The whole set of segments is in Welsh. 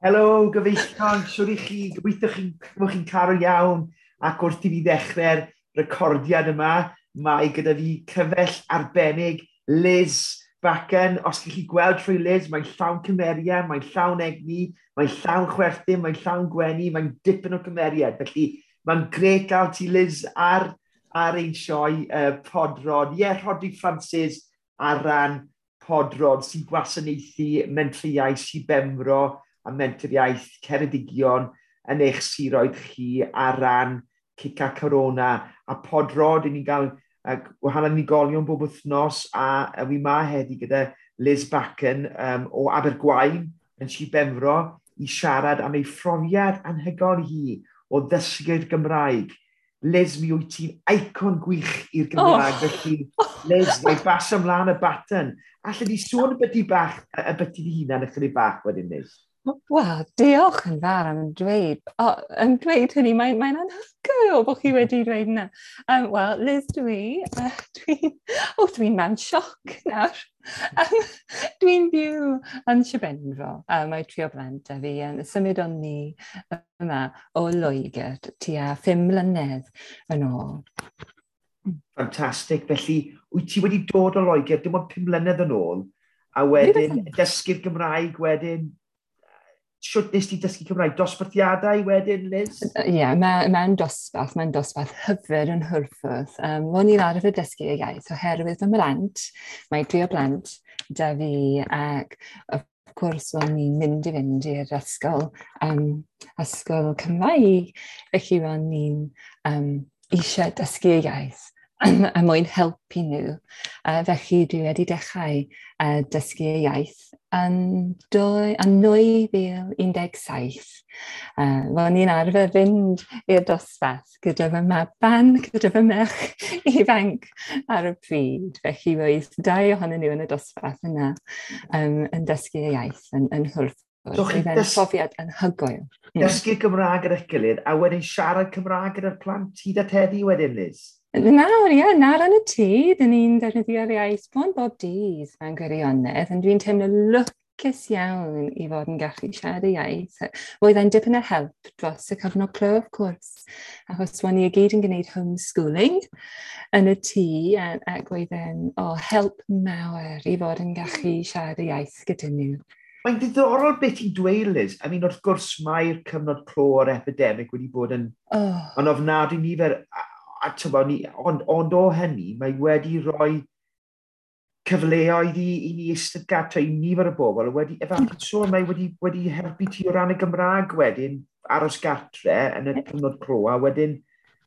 Helo, gyfeillion, siwr i chi, gobeithio chi'n bod chi'n cael iawn ac wrth i fi ddechrau'r recordiad yma, mae gyda fi cyfell arbennig Liz Backen. Os chi gweld trwy Liz, mae'n llawn cymeriad, mae'n llawn egni, mae'n llawn chwerthin, mae'n llawn gwenu, mae'n dipyn o cymeriad. Felly mae'n grêt gael ti Liz ar ein sioe Podrod. Ie, yeah, Rhodri Francis ar ran Podrod sy'n gwasanaethu mentriau Sir Benfro a Menter Iaith Ceredigion yn eich siroedd chi ar ran Cica Corona a Podrod, i ni'n gael gwahanol unigolion bob wythnos a wi ma heddi gyda Liz Backen o Abergwaun yn Sir Benfro i siarad am ei phrofiad anhygoel hi o ddysgu'r Gymraeg. Liz, mi wyt ti'n icon gwych i'r Gymraeg, oh. Felly Liz, mae bas ymlaen y baton. Alla di sôn y byti bach, y byti dy hunan ychydig bach wedyn, Liz? Wel, diolch yn fawr am dweud, oh, am dweud hynny, mae'n mae anhygoel bod chi wedi dweud yna. Wel, Liz dwi, dwi'n oh, dwi mewn sioc nawr. Dwi'n byw yn Sir Benfro, mae tri o blant a fi yn symud o'n ni yma o Loegr tua 5 mlynedd yn ôl. Ffantastig. Felly, wyt ti wedi dod o Loegr dim ond 5 mlynedd yn ôl, a wedyn dysgu'r Gymraeg wedyn shwt nes ti dysgu Cymraeg? Dosbarthiadau wedyn, Liz? Ie, yeah, mae'n ma dosbarth, mae'n dosbarth hyfryd yn Hwlffordd. O'n i'n arfer dysgu y iaith oherwydd fy mhlant, mae dri o blant da fi ac of course o'n i'n mynd i fynd i'r ysgol, ysgol Cymraeg, felly o'n i'n eisiau dysgu y iaith a mwyn helpu nhw. Felly dwi wedi dechrau dysgu y iaith yn 2017. Ro'n i'n arfer fynd i'r dosbarth gyda fy maban, gyda fy merch ifanc ar y pryd. Felly roedd dau ohonyn nhw yn y dosbarth yna yn dysgu y iaith yn Hwlffordd. So chi'n profiad anhygoel. Dysgu Gymraeg gyda'ch gilydd a wedyn siarad Cymraeg gyda'r plant hyd at heddi wedyn, Liz? Nawr, ie, nawr yn y tŷ, dyn ni'n defnyddio'r iaith bron bob dydd mewn gwirionedd, ond dwi'n teimlo lwcus iawn i fod yn gallu siarad y iaith. Roedd e'n dipyn o help dros y cyfnod clo, of course, achos ro'n ni i gyd yn gwneud homeschooling yn y tŷ, ac roedd e'n help mawr i fod yn gallu siarad y iaith gyda nhw. Mae'n ddiddorol beth ti'n dweud, Liz. I mean, wrth gwrs, mae'r cyfnod clo o'r epidemig wedi bod yn, yn ofnadwy nifer, a tybo, ni, ond o hynny, mae wedi rhoi cyfleoedd i ni eistedd gartre i nifer o bobl, wedi, efallai sôn, mae wedi helpu ti o ran y Gymraeg wedyn, aros gartre yn y cyfnod clo, a wedyn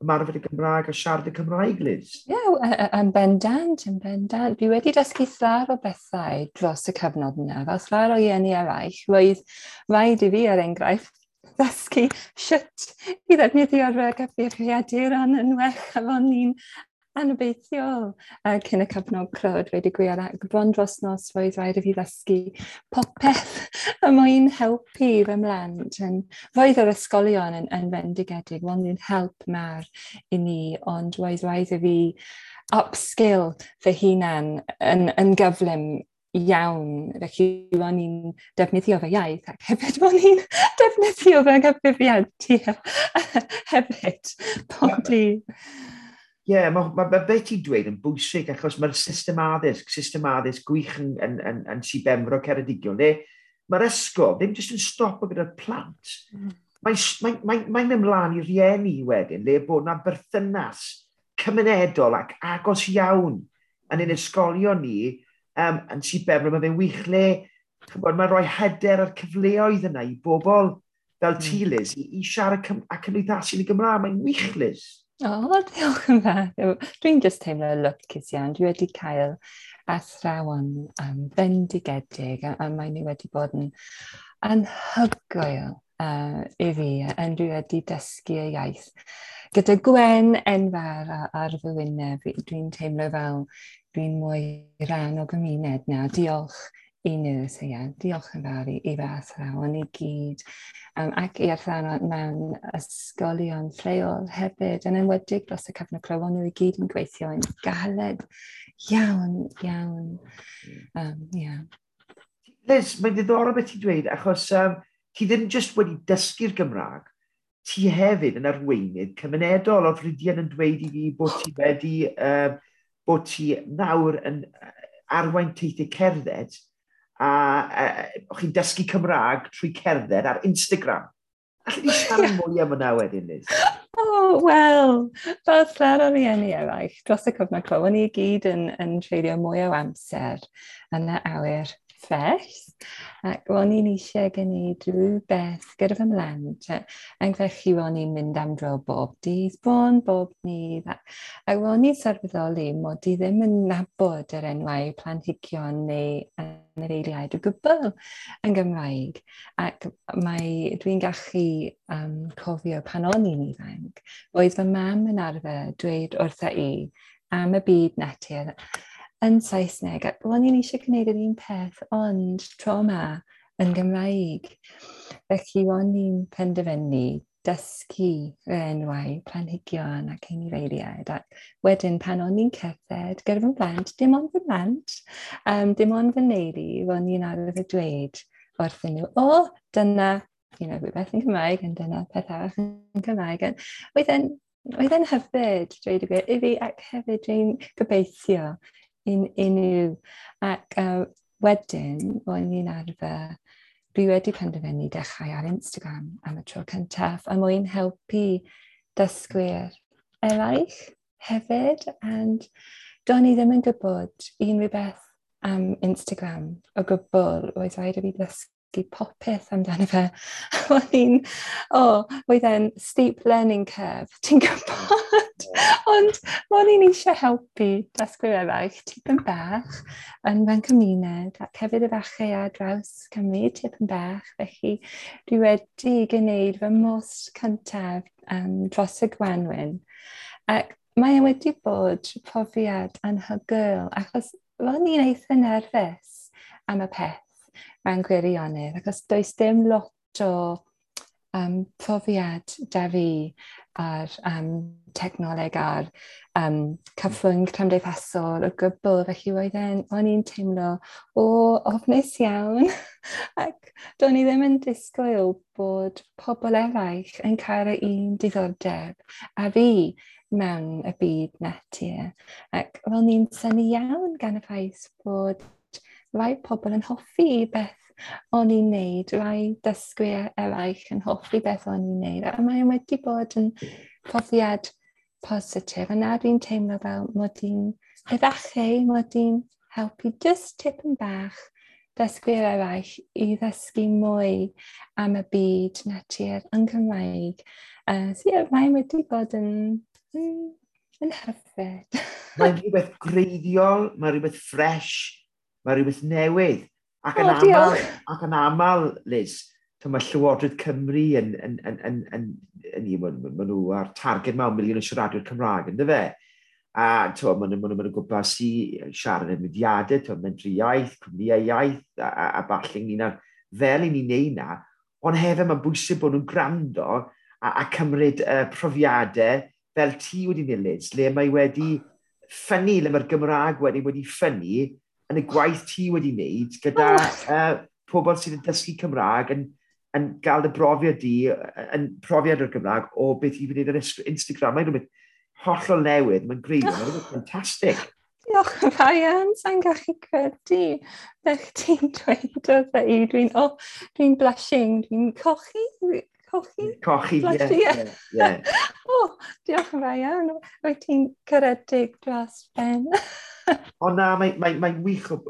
ymarfer y Gymraeg a siarad y Cymraeg, Liz. Ie, yeah, yn bendant, yn bendant. Dwi wedi dysgu llawer o bethau dros y cyfnod yna, fel llawer o rieni eraill. Roedd rhaid i fi, er enghraifft, ddysgu sut i ddefnyddio'r cyfrifiaduron yn well, a fo'n ni'n anobeithiol cyn y cyfnod clo, dweud y gwir, ac bron dros nos roedd rhaid i fi ddysgu popeth y mwyn helpu fy mhlant. Roedd yr ysgolion yn fendigedig, roedd nhw'n help mawr i ni, ond roedd rhaid i fi upskill fy hunan yn gyflym iawn, felly ro'n i'n defnyddio fy iaith ac hefyd ro'n i'n defnyddio fy nghyfrifiadur hefyd pob dydd. Ie, yeah, mae beth ti'n dweud yn bwysig achos mae'r system addysg gwych yn Sir Benfro Ceredigion, le mae'r ysgol ddim jyst yn stopo gyda'r plant. Mae'n mynd ymlaen i rieni wedyn, le bod yna berthynas cymunedol ac agos iawn yn ein ysgolion ni yn Sir Benfro. Mae fe'n wych le, mae'n rhoi hyder a'r cyfleoedd yna i bobl fel ti, Liz, i siarad a cymdeithasu yn y Gymraeg. Mae'n wych, Liz. O, diolch yn fawr. Dwi'n just teimlo lwcus iawn. Dwi wedi cael athrawon bendigedig a mae nhw wedi bod yn anhygoel i fi, a dwi wedi dysgu y iaith. Gyda gwen enfawr ar fy wyneb, dwi'n teimlo fel dwi'n mwy rhan o gymuned nawr. Diolch i nhw, so ie, diolch yn fawr i fy athrawon i gyd, ac i athrawon mewn ysgolion lleol hefyd, yn enwedig dros y cyfnod clo, nhw i gyd yn gweithio yn galed iawn, iawn. Yeah. Liz, mae'n ddiddorol beth ti'n dweud, achos Ti ddim jyst wedi dysgu'r Gymraeg, ti hefyd yn arweinydd cymunedol. Oedd Rhydian yn dweud i fi bod ti wedi, bod ti nawr yn arwain teithiau cerdded a o'ch chi'n dysgu Cymraeg trwy cerdded ar Instagram. Alli di siarad mwy am hwnna wedyn, Liz? Oh, wel, fel llawer o rieni eraill, dros y cyfnod clo, o'n i gyd yn treulio mwy o amser yn y awyr ffres, ac ro'n i'n eisiau gwneud rhywbeth gyda fy mhlant, ac felly ro'n i'n mynd am dro bob dydd, bron bob dydd, ac ro'n i'n sylweddoli mod i ddim yn nabod yr enwau planhigion neu anifeiliaid o gwbl yn Gymraeg, ac dwi'n gallu cofio pan o'n i'n ifanc, roedd fy mam yn arfer dweud wrtha i am y byd natur yn Saesneg, ac ro'n i'n eisiau gwneud yr un peth, ond tro yma yn Gymraeg. Felly ro'n i'n penderfynu dysgu yr enwau planhigion ac anifeiliaid, ac wedyn pan o'n i'n cerdded gyda fy mhlant, dim ond fy mhlant, dim ond fy neulu, ro'n i'n arfer dweud wrthyn nhw, o, dyna, rhywbeth yn Cymraeg, ond dyna peth arall yn Cymraeg. Oedd e'n hyfryd, dweud y gwir, i fi, ac hefyd dwi'n gobeithio i nhw. Ac wedyn, ro'n i'n arfer, dwi wedi penderfynu dechrau ar Instagram am y tro cyntaf, a mwyn helpu dysgwyr eraill hefyd. And do'n i ddim yn gwybod unrhyw beth am Instagram o gwbl. Roedd rhaid i fi ddysgu popeth amdano fe. Oedd e'n steep learning curve, ti'n gwybod? Ond ro'n i'n eisiau helpu dysgwyr eraill tipyn bach yn fy nghymuned, ac hefyd efallai ar draws Cymru tipyn bach. Felly dwi wedi gwneud fy mhost cyntaf dros y gwanwyn. Ac mae e wedi bod profiad anhygoel, achos ro'n i'n eitha nerfus am y peth mewn gwirionedd, achos does dim lot o profiad da fi ar technoleg a'r cyfrwng cymdeithasol o gwbl, felly o'n i'n teimlo o ofnus iawn, ac do'n i ddim yn disgwyl bod pobl eraill yn cael yr un diddordeb a fi mewn y byd natur, ac ro'n i'n synnu iawn gan y ffaith bod rai pobl yn hoffi beth o'n i'n neud, rai dysgwyr eraill yn hoffi beth o'n i'n neud, a mae wedi bod yn profiad positif, a nawr dwi'n teimlo fel mod i'n efallai, mod i'n helpu just tipyn bach dysgwyr eraill i ddysgu mwy am y byd natur yn Cymraeg. So yeah, mae wedi bod yn hyfryd. Mae'n rhywbeth greiddiol, mae'n rhywbeth ffres, mae rhywbeth newydd. Ac yn O, diolch. aml, Liz, mae Llywodraeth Cymru ma' nhw ar targed mewn miliwn o siaradwyr Cymraeg, ynddo fe? A ma' nhw gwmpas i siarad yn mudiadau, Mentrau Iaith, cwmnïau iaith, a ballu ynglyn â'r fel i ni'n neud na, ond hefyd mae'n bwysig bod nhw'n gwrando a cymryd profiadau fel ti wedi neud, Liz, le mae wedi ffynnu, le mae'r Gymraeg wedi ffynnu yn y gwaith ti wedi wneud gyda pobl sydd yn dysgu Cymraeg yn gael y brofiad di, yn profiad o'r Gymraeg o beth i wneud ar Instagram. Mae'n rhywbeth hollol newydd, mae'n greiddiol, mae'n rhywbeth ffantastig. Diolch yn fawr iawn, sa'n gallu credu beth ti'n dweud wrtha i. Dwi'n blushing, dwi'n cochi, cochi? Cochi, ie, Blushing, ie. ie, ie. O, diolch yn fawr iawn, wyt ti'n caredig dros ben. Ond na, mae'n wych o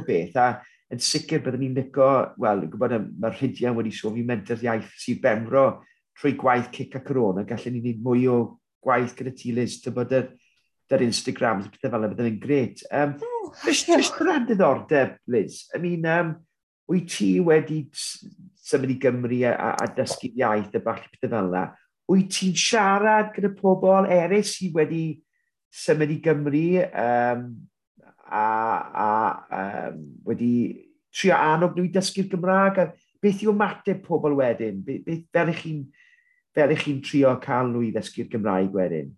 beth, a yn sicr byddwn ni'n licio, wel, gwybod, mae'r Rhydian wedi sôn fi Menter Iaith Sir Benfro trwy gwaith Cic a Corona, gallen ni wneud mwy o gwaith gyda ti, Liz, ti'n bod yr Instagrams a pethau fel yna, bydden ni'n gret. Oh, Just diolch. o ran diddordeb, Liz, wyt ti wedi symud i Gymru a dysgu iaith a falle pethau fel yna, wyt ti'n siarad gyda pobl eraill sydd wedi symud i Gymru a wedi trio annog nhw i dysgu'r Gymraeg? A beth yw ymateb pobl wedyn? Fel ych chi'n trio cael nhw i ddysgu'r Gymraeg wedyn?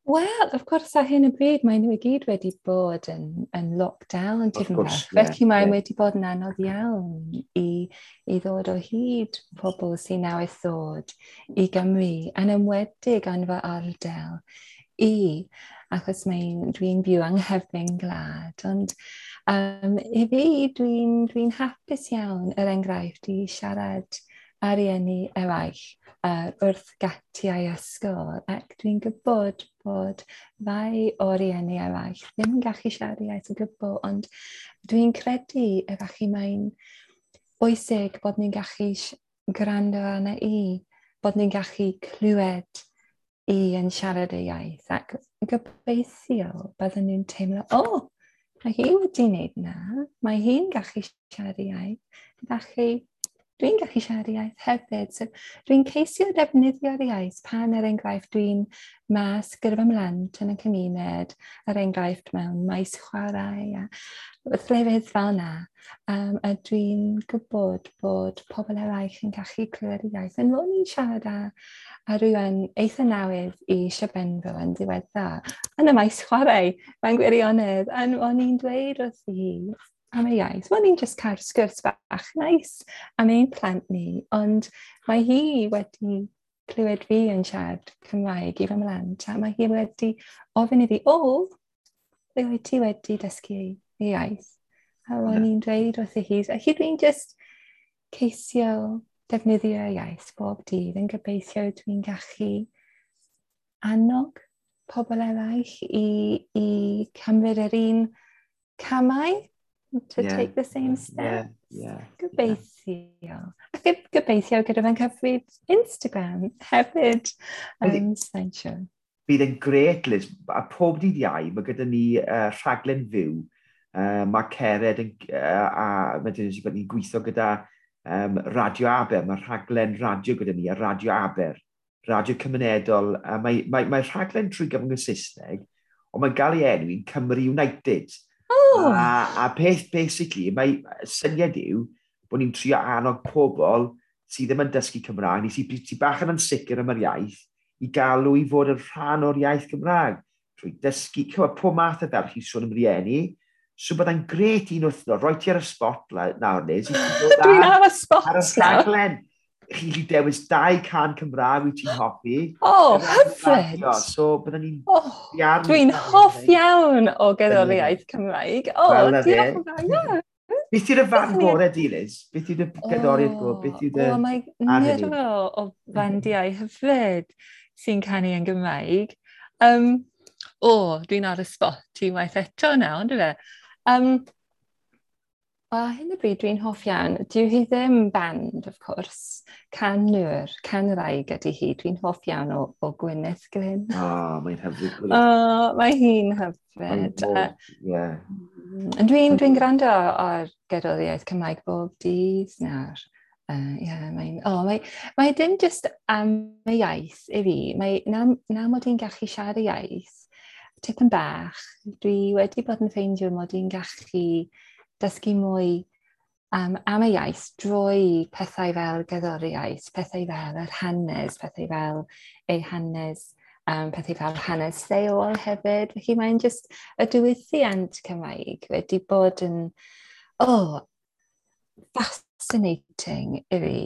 Wel, of course, ar hyn o bryd, mae nhw i gyd wedi bod yn lockdown tipyn bach. Felly mae wedi bod yn anodd iawn i ddod o hyd pobl sy'n newydd ddod i Gymru, yn enwedig yn fy ardal i, achos dwi'n byw yng nghefn gwlad. Ond i fi, dwi'n hapus iawn, er enghraifft, i siarad â rieni eraill wrth gatiau ysgol, ac dwi'n gwybod bod rai o rieni eraill ddim yn gallu siarad iaith o gwbl, ond dwi'n credu efallai mae'n bwysig bod ni'n gallu gwrando arna i, bod ni'n gallu clywed i yn siarad y iaith, ac gobeithio byddwn nhw'n teimlo, o, oh, mae hi wedi wneud na, mae hi'n gallu siarad y iaith, felly dwi'n gallu siarad iaith hefyd. So, dwi'n ceisio defnyddio'r iaith pan, er enghraifft, dwi'n mas gyda fy mhlant yn y cymuned, er enghraifft mewn maes chwarae a llefydd fel yna. A dwi'n gwybod bod pobl eraill yn gallu clywed y iaith. Yn ro'n i'n siarad â rhywun eitha newydd i Sir Benfro yn ddiweddar, yn y maes chwarae, mae'n gwirionedd, a o'n i'n dweud wrth hi am y iaith. Wel, ni'n just cael sgwrs bach nice am ein plant ni, ond mae hi wedi clywed fi yn siarad Cymraeg i fy mhlant, a mae hi wedi ofyn i fi, "O, ble wyt ti wedi dysgu y iaith?" A ro'n i'n dweud wrth hi, a hi dwi'n just ceisio defnyddio iaith bob dydd yn gobeithio dwi'n gallu annog pobl eraill i cymryd yr un camau, to take the same steps. Gobeithio. Ac gobeithio gyda fe'n cyfrif Instagram hefyd. Sa'n siŵr. Bydd yn gret, Liz. A pob dydd Iau, mae gyda ni rhaglen fyw. Mae Cered yn, a mae dyn ni ni'n gweithio gyda Radio Aber. Mae rhaglen radio gyda ni, a Radio Aber, radio cymunedol. A mae rhaglen trwy gyfrwng y Saesneg, ond mae'n gael ei enwi'n Cymru United. Oh. A peth, basically, mae syniad yw bod ni'n trio annog pobl sydd ddim yn dysgu Cymraeg, neu sydd bach yn ansicr am yr iaith, i galw i fod yn rhan o'r iaith Gymraeg. Trwy dysgu, cywed, pob math o fel chi sôn am rieni. So byddai'n gret un wythnos, roi ti ar y spot nawr, Liz. Dwi'n ar y spot ar y rhaglen. Chi'n gallu dewis dau can Cymraeg wyt ti'n hoffi. Oh, hyfryd. So byddwn ni'n Oh, dwi'n hoff iawn o gerddoriaeth Cymraeg. Oh, Wel, na diolch yn fawr. Yeah. Beth yw'r fan gorau di, Liz? Beth yw'r gerddoriaeth gorau? Beth yw dy O, mae ar hynny? nifer o fandiau hyfryd sy'n canu yn Gymraeg. O, dwi'n ar y spot unwaith eto nawr, on'd yfe? Wel, ar hyn o bryd dwi'n hoff iawn. Dyw hi ddim band, of course. Canwr, canwraig ydy hi. Dwi'n hoff iawn o Gwyneth Glyn. O, mae'n hyfryd. O, mae hi'n hyfryd. Ie. Dwi'n gwrando ar gerddoriaeth Cymraeg bob dydd nawr. Yeah, oh, mae dim just am y iaith i fi. Mae, na mod i'n gallu siarad y iaith, tipyn bach, dwi wedi bod yn ffeindio mod i'n gallu dysgu mwy am y iaith drwy pethau fel gerddoriaeth, pethau fel yr hanes, pethau fel ei hanes, pethau fel hanes lleol hefyd. Felly mae'n just y diwylliant Cymraeg wedi bod yn, oh, fascinating i fi.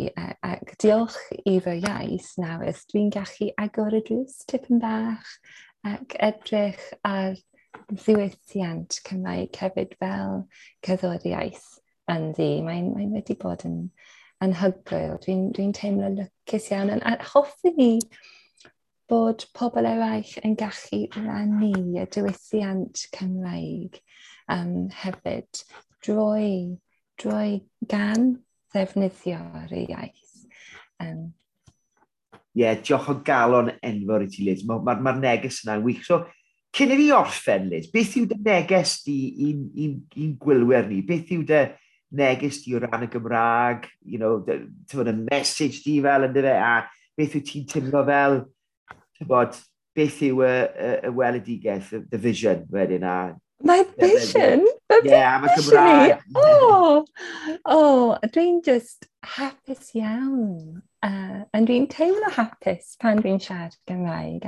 Ac diolch i fy iaith nawr, dwi'n gallu agor y drws tipyn bach ac edrych ar ddiwylliant Cymraeg hefyd fel cerddoriaeth ynddi. Mae'n wedi bod yn anhygoel. Dwi'n teimlo lwcus iawn. A hoffwn i bod pobl eraill yn gallu rannu y diwylliant Cymraeg hefyd drwy gan ddefnyddio'r iaith. Ie, yeah, diolch o galon enfawr i ti, Liz. Mae'r ma neges yna'n wych. So, cyn i fi orffen, Liz, beth yw dy neges di i'n gwylwyr ni? Beth yw dy neges di o ran y Gymraeg? Ti'n y message di fel ynddo fe, a beth yw ti'n teimlo fel, ti'n bod, beth yw y weledigaeth, the vision wedyn? A My vision? The Ie, yeah, am y Gymraeg. Oh, dwi'n just hapus iawn. A dwi'n teimlo hapus pan dwi'n siarad Gymraeg.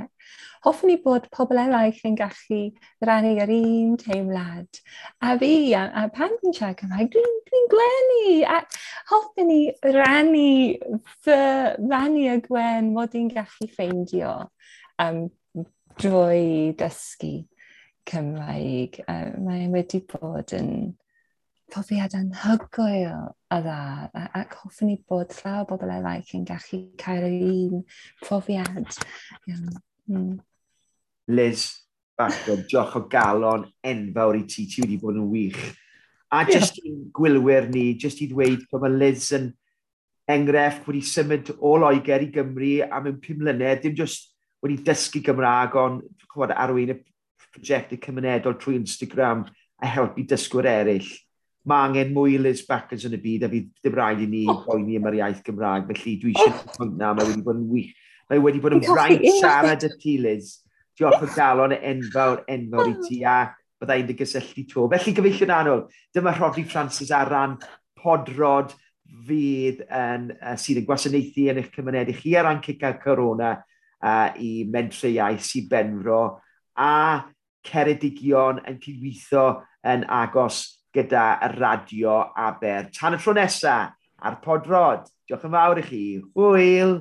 Hoffwn i bod pobl eraill yn gallu rannu yr un teimlad. A fi, a pan dwi'n siarad Cymraeg, dwi'n gwenu. A hoffwn i rannu y gwen mod i'n gallu ffeindio drwy dysgu Cymraeg. Mae wedi bod yn profiad anhygoel a dda, ac hoffwn i bod llawer o bobl eraill yn gallu cael yr un profiad. Yeah. Liz Bacon, diolch o galon enfawr i ti, ti wedi bod yn wych. A jyst i'n gwylwyr ni, jyst i ddweud bod mae Liz yn enghraifft wedi symud o Loegr i Gymru am 5 mlynedd, dim jyst wedi dysgu Gymraeg, ond chwbod, arwain y prosiectau cymunedol trwy Instagram a helpu dysgwyr eraill. Mae angen mwy Liz Backers yn y byd a fydd ddim rhaid i ni boeni am yr iaith Gymraeg, felly dwi eisiau pwynt na, mae wedi bod yn wych. Mae wedi bod yn fraint siarad â ti, Liz. Diolch o galon enfawr, enfawr i ti, a bydda i'n dy gysylltu to. Felly, gyfeillion annwyl, dyma Rhodri Francis ar ran Podrod fydd yn, sydd yn gwasanaethu yn eich cymuned i chi ar ran Cica Corona i Mentrau Iaith Sir Benfro a Ceredigion yn cydweithio yn agos gyda Radio Aber. Tan y tro nesaf ar Podrod. Diolch yn fawr i chi. Hwyl!